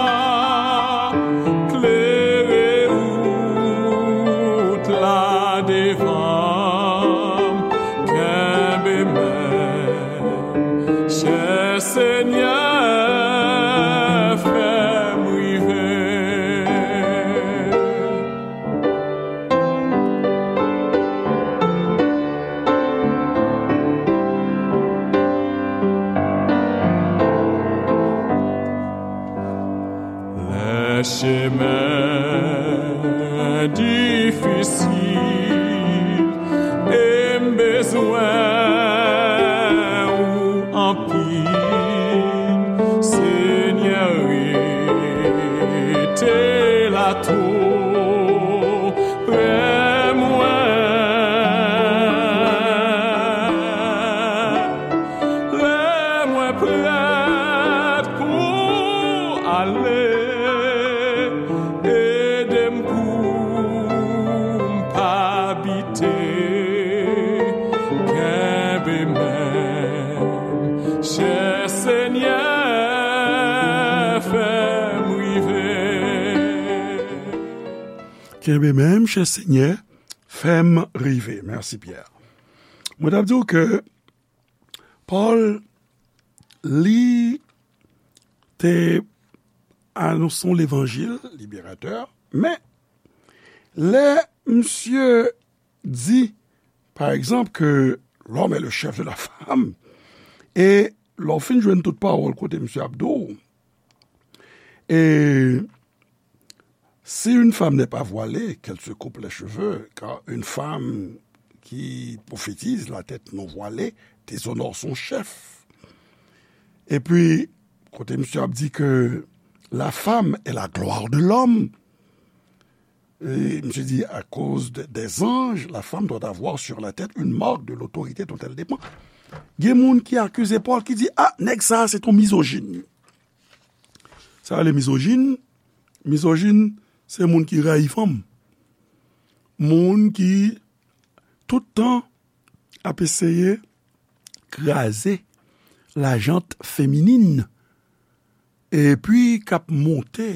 klere wout la devan m, kenbe men m, chè Senyè, fè m rive. Lè chemen difisil e m bezwen ou anpil, Senyè, rete la tou pre mwen. Lè mwen prèt pou ale, ede m pou m pa bite, kenbe men m, chè Senyè, fè m rive. Kenbe men m, chè Senyè, fè m rive. Mèsi, Pierre. Mwen t ap di w ke Pòl, li te anonse yon levanjil liberatè, men lè misye di, pa egzanp, ke l'homme est le chef de la femme, e lè w fin jwenn tout pawòl kote misye ap di w, e si une femme n'est pas voilée, qu'elle se coupe les cheveux, car une femme qui prophétise, la tête non voilée déshonore son chef. Epi, kote misye ap di ke la femme est la gloire de l'homme, e misye di, à cause de- des anges, la femme doit avoir sur la tête une marque de l'autorité dont elle dépend. Gen moun ki akize Pòl, ki di, ah, nèg sa a se yon mizojin. Sa rele mizojin. Mizojin, se moun ki rayi fanm. Moun ki tout tan ap eseye kraze lajant feminin, epi k ap monte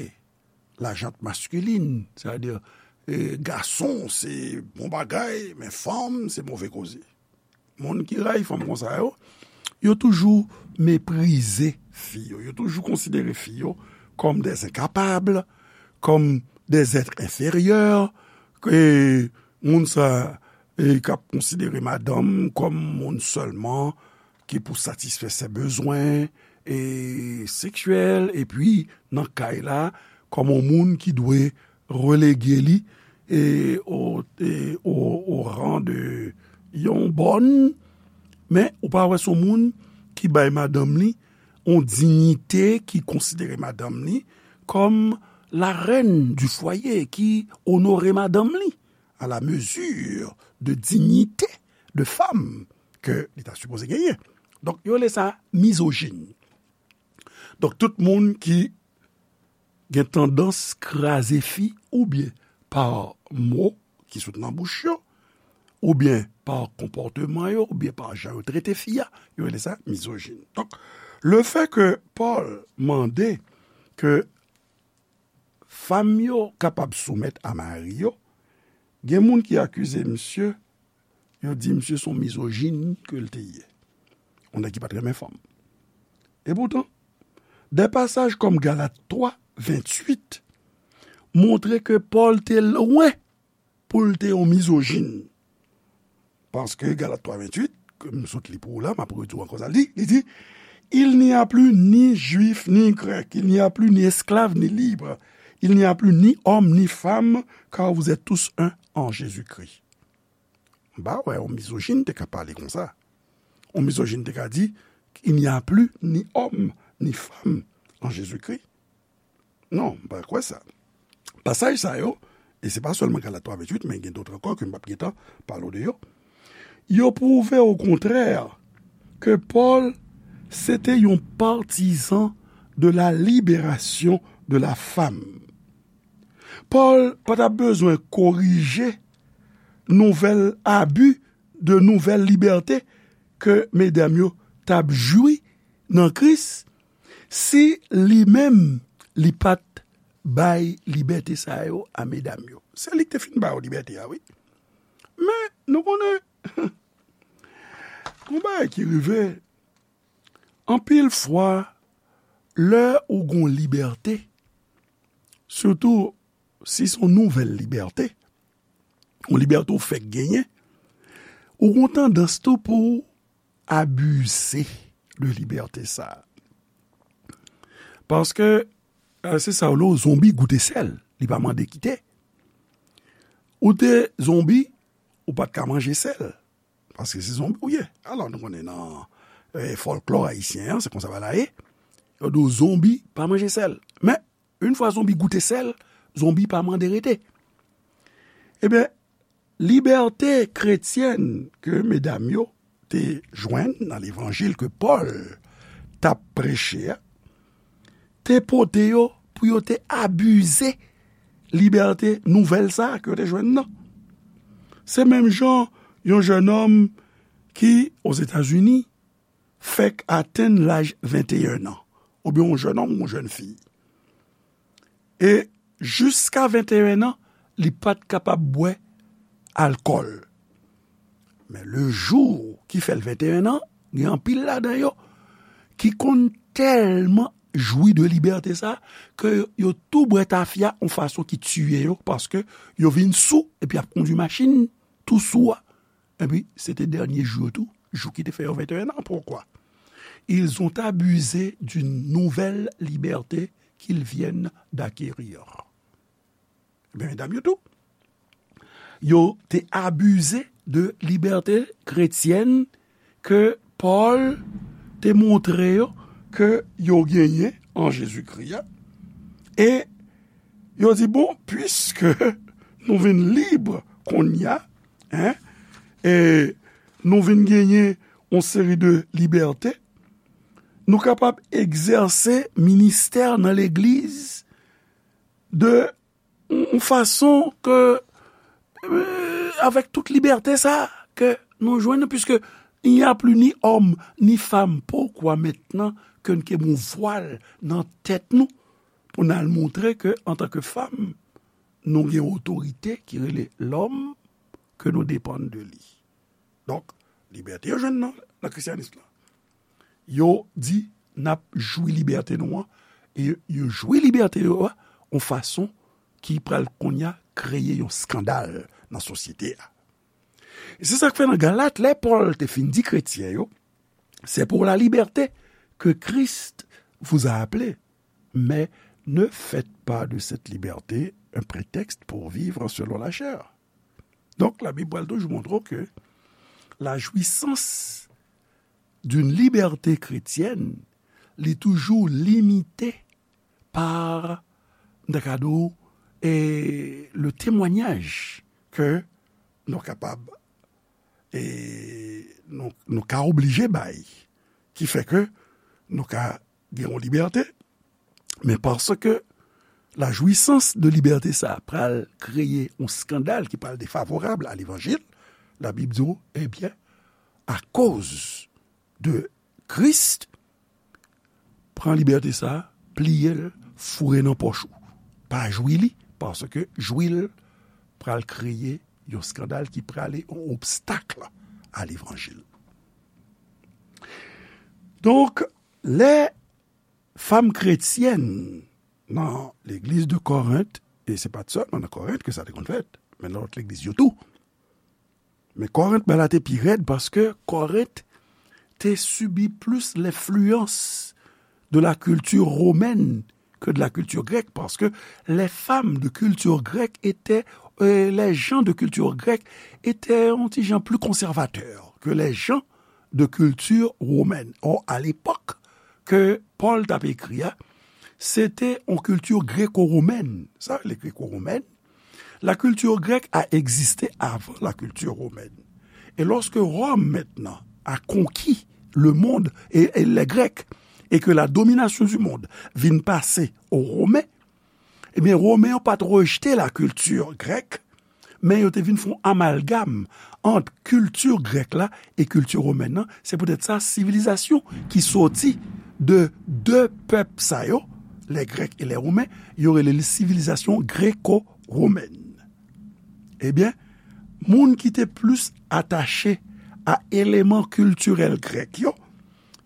lajant maskilin. Sètadi, e, gason se bon bagay, men fanm se move koze. Moun ki rayi fanm konsa yo, yo toujou meprize fi yo. Yo toujou konsidere fi yo kòm des incapables, kòm des êtres inférieurs, ke moun sa, e, k ap konsidere madanm kòm moun sèlman ki pou satisfè se bezwen, e, seksyèl, epi nan kay la, kòm yon moun ki dwe relege li, e, o, e, o, o ran de yon bòn, men ou pa wè se yon moun ki bay madanm li yon diyite, ki konsidere madanm li kòm la reine du foyer, ki onore madanm li à la mesure de dignité de femme ke li ta sipoze genyen. Donk, yo rele sa mizojin. Donk, tout moun ki gen tandans kraze fi oubyen pa mo ki sot nan bouch yo, oubyen pa konpòteman yo, oubyen pa jan yo trete fi a, yo rele sa mizojin. Donk, le fait que Paul mande ke fanm yo kapab soumèt a mari yo, gen moun ki akize misye, yo di misye se yon mizojin ke l te ye. Yon nèg ki pa t renmen fanm. E poutan, de pasaj kòm Galat twa, venntuit, montre ke Pòl te lwen pou l te yon mizojin. Paske Galat twa venntuit, ke m sot li pou ou la, m ap redi w ankò sa l di, li di, il n'y a plus ni juif ni grec, il n'y a plus ni esclave ni libre, il n'y a plus ni homme ni femme, car vous êtes tous un en Jésus-Christ. M pa wè yon mizojin te ka pale konsa. Yon mizojin te ka di, il n'y a plus ni homme ni femme en Jésus-Christ. Non, m pa kwè sa. Pasaj sa yo, e se pa sèlman Galat twa venntuit, men gen dòt ankò ke m p ap gentan pale w de yo, yo pwouve okontrè ke Pòl se te yon patizan de la libération de la femme. Pòl pa t ap bezwen korije nouvèl abi, de nouvèl libète ke medam yo t ap jwi nan Kris, si li menm li pa t bay libète sa yo a medam yo. Se li ki te fin ba yo libète a, wi. Men, nou konnen, yon bagay ki rive, anpil fwa, lè ou gon libète, sitou si se yon nouvèl libète, yon libète ou fèk genyen, ou gon tandans tou pou w abize de libète sa a. Paske, e, se sa w le, yon zonbi goute sèl, li pa mande kite. Ou te zonbi, ou pa t ka manje sèl. Paske se zonbi w ye. Alò, nou konnen nan, e, fòlklò ayisyen an, se konsa bagay la ye. Yo di w zonbi pa manje sèl. Men, yon fwa zonbi goute sèl, zonbi pa mande rete. Ebyen, libète kretyèn ke medam yo te jwenn nan levanjil ke Pòl t ap preche a, te pote yo pou yo te abize libète nouvèl sa a ke yo te jwenn nan. Se menm jan yon jennonm ki, Ozetazini, fèk atenn laj venteyen an, oubyen yon jennonm, yon jennfi. E jiska venteyen an, li pa t kapab bwè alkòl. Men le jou ki fè l venteyen an, gen anpil ladan yo ki konn tèlman jwi de libète sa, ke yo tou bwè tafya yon fason ki tiye yo, paske yo vin sou, epi y ap kondui machin tou sou a. Epi, se te dènye jou yo tou, jou ki te fè yo venteyen an. Poukwa? Ils ont abusé d'une nouvelle liberté qu'ils viennent d'acquérir. Ebyen, medam yo tou, yo te abize de libète kretyèn ke Pòl te montre yo ke yo genyen an Jezikri a. E yo di, bon, piske nou vin lib kounye a, en, e nou vin genyen yon seri de libète, nou kapab egzèse ministè nan legliz de yon fason ke, euh, avèk tout libète sa ke nou jwenn, puisque il n'y a plus ni homme ni femme, pourquoi maintenant ke n ke bon vwal nan tèt nou pou n al montre ke antanke fanm, nou gen otorite ki rele lòm ke nou depann de li. Donk, libète yo jwenn nan, nan kristyanis lan. Yo di n ap jwi libète nou an, e yo jwi libète yo a yon fason ki pral kounye a kreye yon eskandal nan sosyete a. E se sa k fè nan Galat, lè Pòl te fin di kretyen yo, c'est pour la liberté que Christ vous a appelés, mais ne faites pas de cette liberté un prétexte pour vivre selon la chair. Donk, Labib pral toujou montre w ke la jouissance d'une liberté chrétienne, li toujou limite pa, m ta ka di w, e, le temwanyaj ke nou kapab, e, nou, nou ka oblije bay, ki fè ke nou ka gen yon libète, men paske la jouissance de libète sa pral kreye yon eskandal ki pral defavorab a levanjil, Labib di w, ebyen, akoz de Kris, pran libète sa, pliye l, foure nan pòch ou. Pa jwi li, paske jwi l pral kreye yon eskandal ki prale yon obstak a levanjil. Donk, lè fanm kretyèn nan legliz de Korent, e se pa t sèlman nan Korent ke sa te konn fèt, men nan lòt legliz yo tou. Men Korent, bagay la te pi rèd paske Korent te sibi plis lenfliyans de la culture romaine que de la culture grecque, parce que les femmes de culture grecque étaient, euh, les gens de culture grecque étaient un petit genre plus conservateurs que les gens de culture romaine. Or, à l'époque que Paul t ap écrit, se te yon kilti greko-womèn. Sa, les gréco-romaines, la culture grecque a existé avant la culture romaine. Et lorsque Rome, maintenant, a conquis le monde et, et les Grecs, et que la domination du monde vin pase aux Romains, ebyen, Romen yo pa t rejte la kilti grèk, men yo te vin fè yon amalgam ant kilti grèk la e kilti womèn nan. Se poutèt sa, sivilizasyon ki soti de de pèp sa yo, les Grecs et les Romains, yo rele li sivilizasyon greko-womèn. Ebyen, moun ki te plis atache a eleman kiltirèl grèk yo,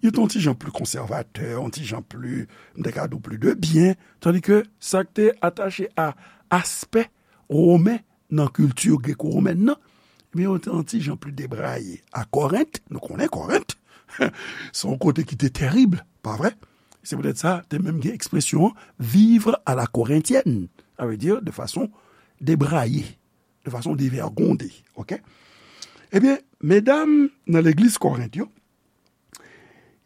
yo te yon ti jan pli konsèvatè, yon ti jan pli, m te ka di w, pli de byen, tandi ke sa k te atache a aspè women nan kilti greko-womèn nan, ebyen, yo te yon ti jan pli debraye. A Korent, nou konnen Korent, se yon kote ki te tèrib, pa vre? Se poutèt sa, te menm gen ekspresyon an, vivre à la corinthienne, sa vle di de fason debraye, de fason devègonde, oke? Ebyen, medam nan legliz Korent yo,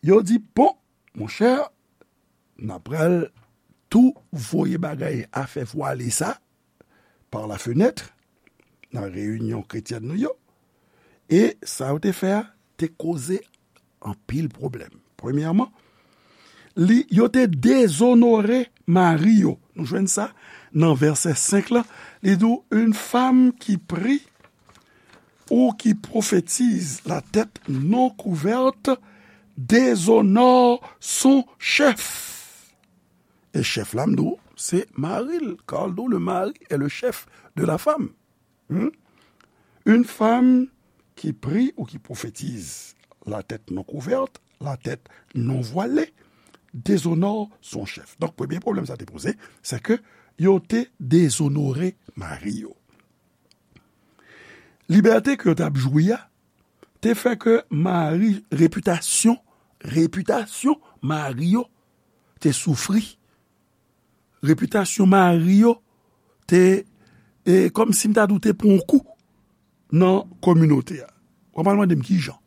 yo di, bon, monchè, n ap pral tou voye bagay afè vwale sa par la fenêtre nan reyinyon kretyèn nou yo. E sa yo te fè a te koze anpil pwoblèm. Premyèman, li, yo te dezonore mari yo. Nou jwenn sa nan vèsè senk la. Li di w, une femme qui prie ou qui prophétise la tête non couverte déshonore son chef. E chèf la, m di w, se mari l. Car le mari est le chef de la femme. Hmm? Une femme qui prie ou qui prophétise la tête non couverte, la tête non voilée, déshonore son chef. Donk, premye pwoblèm sa te poze, se ke yo te dezonore mari yo. Libète ke yo t ap jwi a te fè ke mari, repitasyon, repitasyon mari yo te soufri. Repitasyon mari yo te, e, kòmsi m ta di w, te pran yon kou. nan kominote a. W ap al mande m ki jan.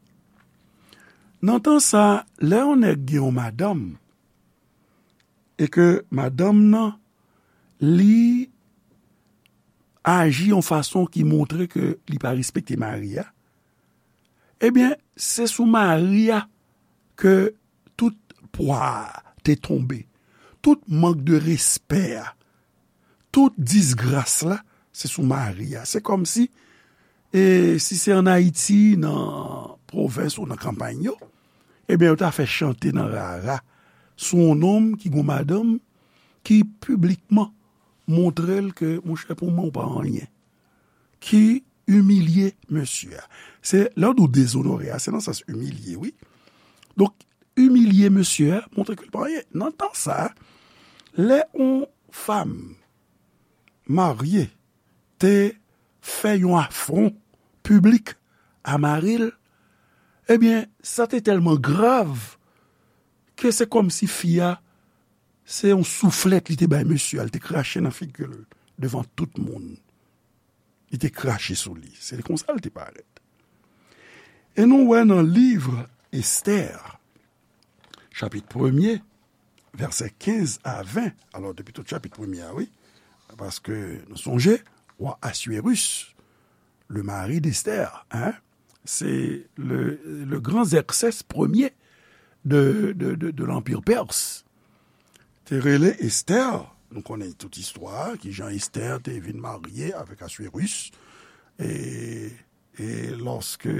Nan tan sa, lè yon nèg gen yon madanm, e ke madanm nan, li aji yon fason ki montre ke li pa respekte mari a, ebyen, se sou mari a ke tout pwa a te tonbe, tout mank de respè a, tout disgras la, se sou mari a. Se kòmsi, e si se ann Ayiti, nan pwovens ou nan kanpay yo, ebyen, yo ta fè chante nan rara sou yon nonm ki gon madanm ki piblikman montre l ke, monchè, pou mwen, ou pa anyen. Ki imilye mesye a. Se, lè w di w dezonore a, se nan sans imilye, wi. Donk, imilye mesye a, montre ke l pa anyen. Nan tan sa, lè yon fanm marye te fè yon afwon piblik a mari l, ebyen, sa te tèlman grav ke se kòmsi fi a, se yon souflèt li te bay mesye a, li te krache nan figi l devan tout moun. Li te krache sou li. Se konsa l te parèt. E nou wè nan liv Estè, chapit premye, vèsè kenz a ven. Alò, depi tout chapit premye a, wi. Paske nou sonje, wa Aswérus, le mari d'Esther, hein, c'est le, le grand Xerxès premier de, de, de, de l'Empire perse, te rele Esther. Nou konnen tout istwa, kijan Esther te vin marye avèk Aswérus. E, e lòske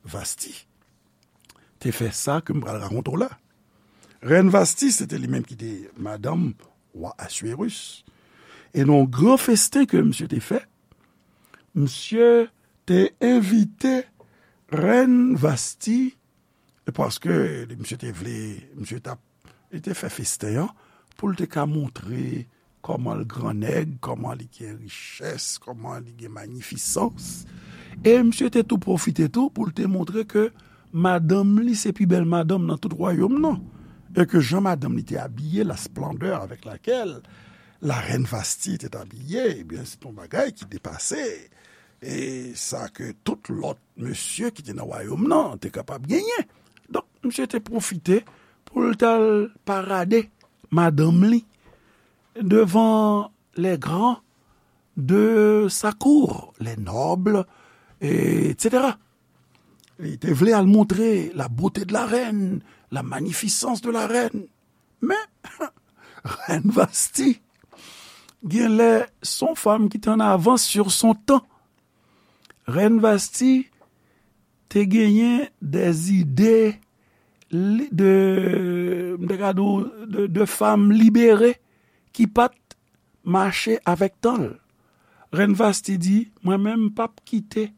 Vasti te fè sa ke m pral rakonte w la. Rèn Vasti, se te li menm ki te madanm wa Aswérus. E nan yon gran festen ke misye te fè, misye te envite Rèn Vasti, e paske misye te vle, misye t ap, li te fè festen an pou l te ka montre kòman l gran nèg, kòman li gen richès, kòman li gen manifisans. E misye te tou pwofite tou pou l te montre ke madanm li se pi bèl madanm nan tout wayòm nan. E ke jan madanm li te abiye, la splendeur avec laquelle la reine Vasti était habillée, ebyen, se yon bagay ki depase e sa ke tout lòt mesye ki te nan wayòm nan te kapab genyen. Donk, misye te pwofite pou l t al parade madanm li devan les grands de sa cour, les nobles, et cetera. Li te vle al montre la beauté de la reine, la magnificence de la reine. Men, Rèn Vasti, genlè, se yon fanm ki te an avans sur son tan. Rèn Vasti te genyen des idées li-, de, m te ka di w, de, de fanm libere ki pa t mache avèk tan l. Rèn Vasti di, mwen menm, m p ap kite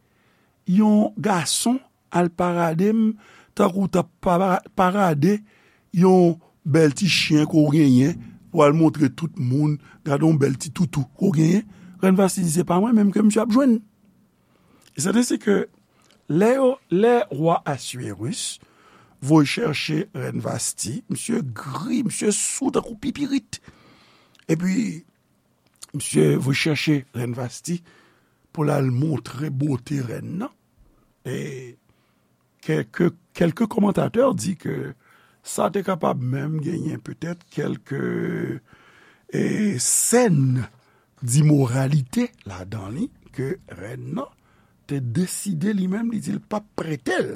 yon gason al parade m tankou w t ap para-, parade yon bèl ti chen ke w genyen, pou al montre tout moun, gade yon bèl ti toutou ke w genyen. Rèn Vasti di, se pa mwen menm ke misye ap jwenn. E se te si ke lè yo, lè wa Aswérus voye chèche Rèn Vasti, misye gri, misye sou tankou pipirit. Epi, misye voye chèche Rèn Vasti pou l al montre bote rèn nan. E kèlke, kèlke kòmantatè di ke sa te kapab menm genyen petèt kèlke, e, sèn dimoralite ladan li ke rèn nan te deside li menm, li di l p ap prete l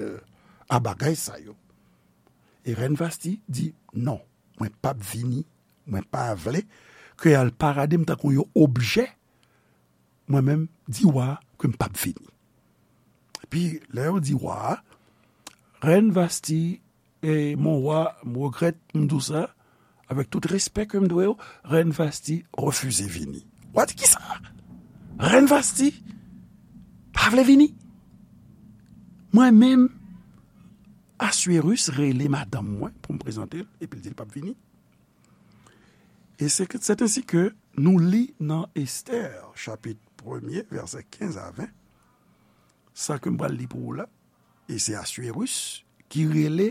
a bagay sa yo. E rèn Vasti di, non, mwen p ap vini, mwen pa vle ke y al parade m tankou yon objè, mwen menm di wa a ke m p ap vini. Epi, lè yo di wa a, rèn Vasti, e mon wa, m regrèt m di w sa, avèk tout respè ke m dwe w, rèn Vasti refize vini. Wa di kisa? Rèn Vasti pa vle vini. Mwen menm, Aswérus rele madanm mwen pou m prezante l, epi l di l p ap vini. E se ke, c'est ainsi que nou li nan Estè, chapit premye, vèsè kenz a ven, sa ke m pral li pou ou la, e se Aswérus ki rele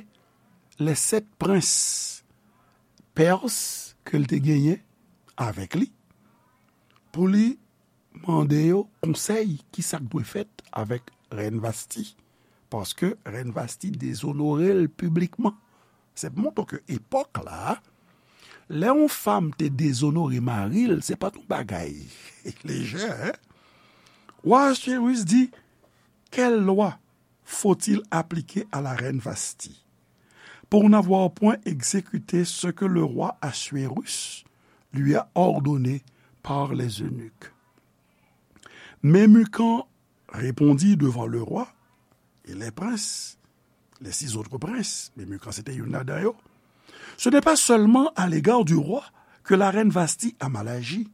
les sept princes perses ke l te genyen avèk li, pou li mande yo konsèy, ki sa k dwe fèt avèk Rèn Vasti, paske Rèn Vasti dezonore l piblikman. Se pou montre ke epòk la, lè yon fanm te dezonore mari l, se pa t yon bagay lejè, en? Wa Ahasuerus di, quelle loi faut-il appliquer à la reine Vasti pour n'avoir point exécuté ce que le roi Assuérus lui a ordonné par les eunuques? Memucan répondit devant le roi et les princes, les six autres princes, Memucan se te youn ladan yo, ce n'est pas seulement à l'égard du roi que la reine Vasti a mal agi,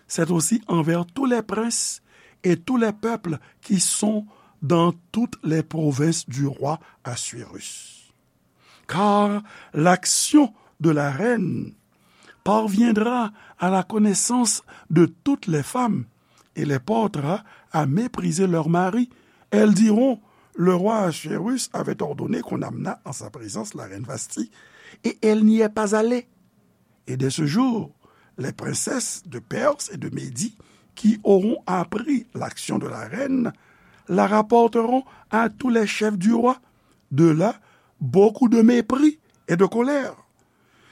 c'est aussi envers tous les princes et tous les peuples qui sont dans toutes les provinces du roi Assuérus. Car l'action de la reine parviendra à la connaissance de toutes les femmes et les portera à mépriser leurs maris. Elles diront, le roi Assuérus avait ordonné qu'on amenât en sa présence la reine Vasti, et elle n'y est pas allée. Et dès ce jour, les princesses de Perse et de Médie qui auront appris l'action de la reine la rapporteront à tous les chefs du roi. De là, beaucoup de mépris et de colère.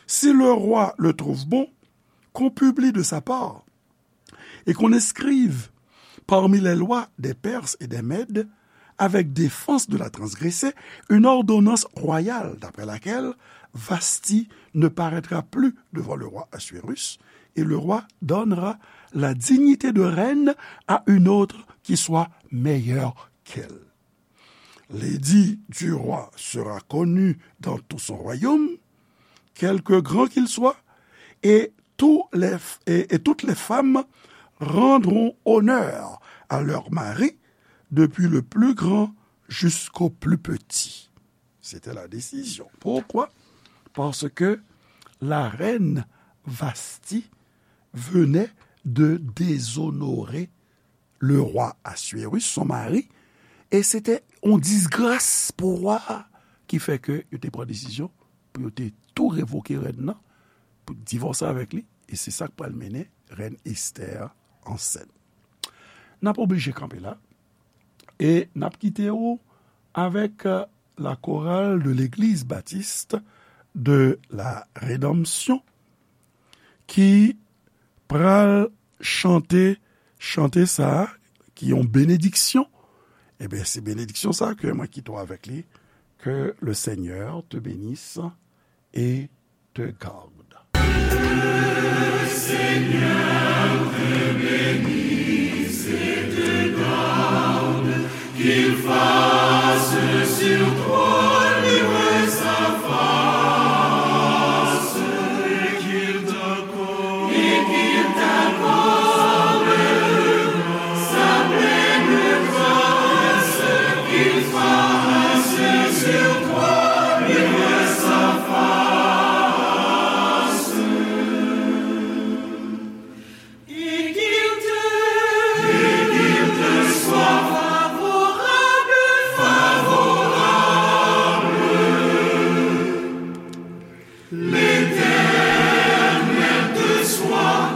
Si le roi le trouve bon, qu'on publie de sa part et qu'on inscrive parmi les lois des Perses et des Mèdes, avec défense de la transgresser, une ordonnance royale d'après laquelle Vasti ne paraîtra plus devant le roi Assuérus, et le roi donnera la dignité de reine à une autre qui soit meilleure qu'elle. L'édit du roi sera connu dans tout son royaume, quelque grand qu'il soit, et, tous les, et, et toutes les femmes rendront honneur à leur mari, depuis le plus grand jusqu'au plus petit. C'était la décision. Pourquoi? Parce que la reine Vasti venait de déshonorer le roi Assuérus, son mari, e se te yon disgras pou wa a, ki fè ke yo te pran desizyon pou yo te tou revoke rèn nan, pou divòse avèk li, e se sa k pral mennen rèn Esther ansent. N ap oblije kanpe la, e n ap kite w avèk, euh, la chorale de l'Église baptiste de la Rédemption, ki pral chante chante sa a, ki yon benediksyon. Ebyen, se benediksyon sa a ke mwen kite w avèk li. Que le Seigneur te bénisse et te garde. Qu'il fasse sur toi luire sa face, et qu'il t'accorde, et qu'il t'accorde sa pleine grâce, qu'il fasse sur toi luire sa face. Et qu'il te, et qu'il te soit favorable, favorable. L'Éternel te soit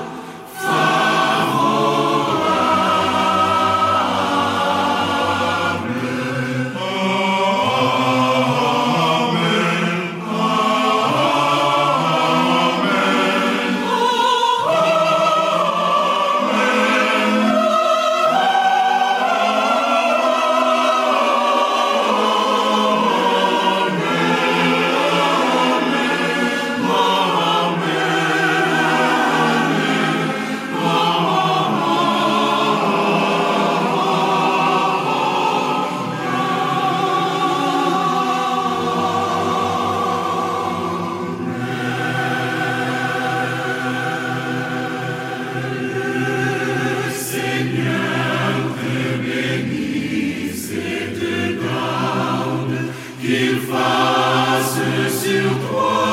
favorable. Amen. Le Seigneur te bénisse et te garde, qu'il fasse sur toi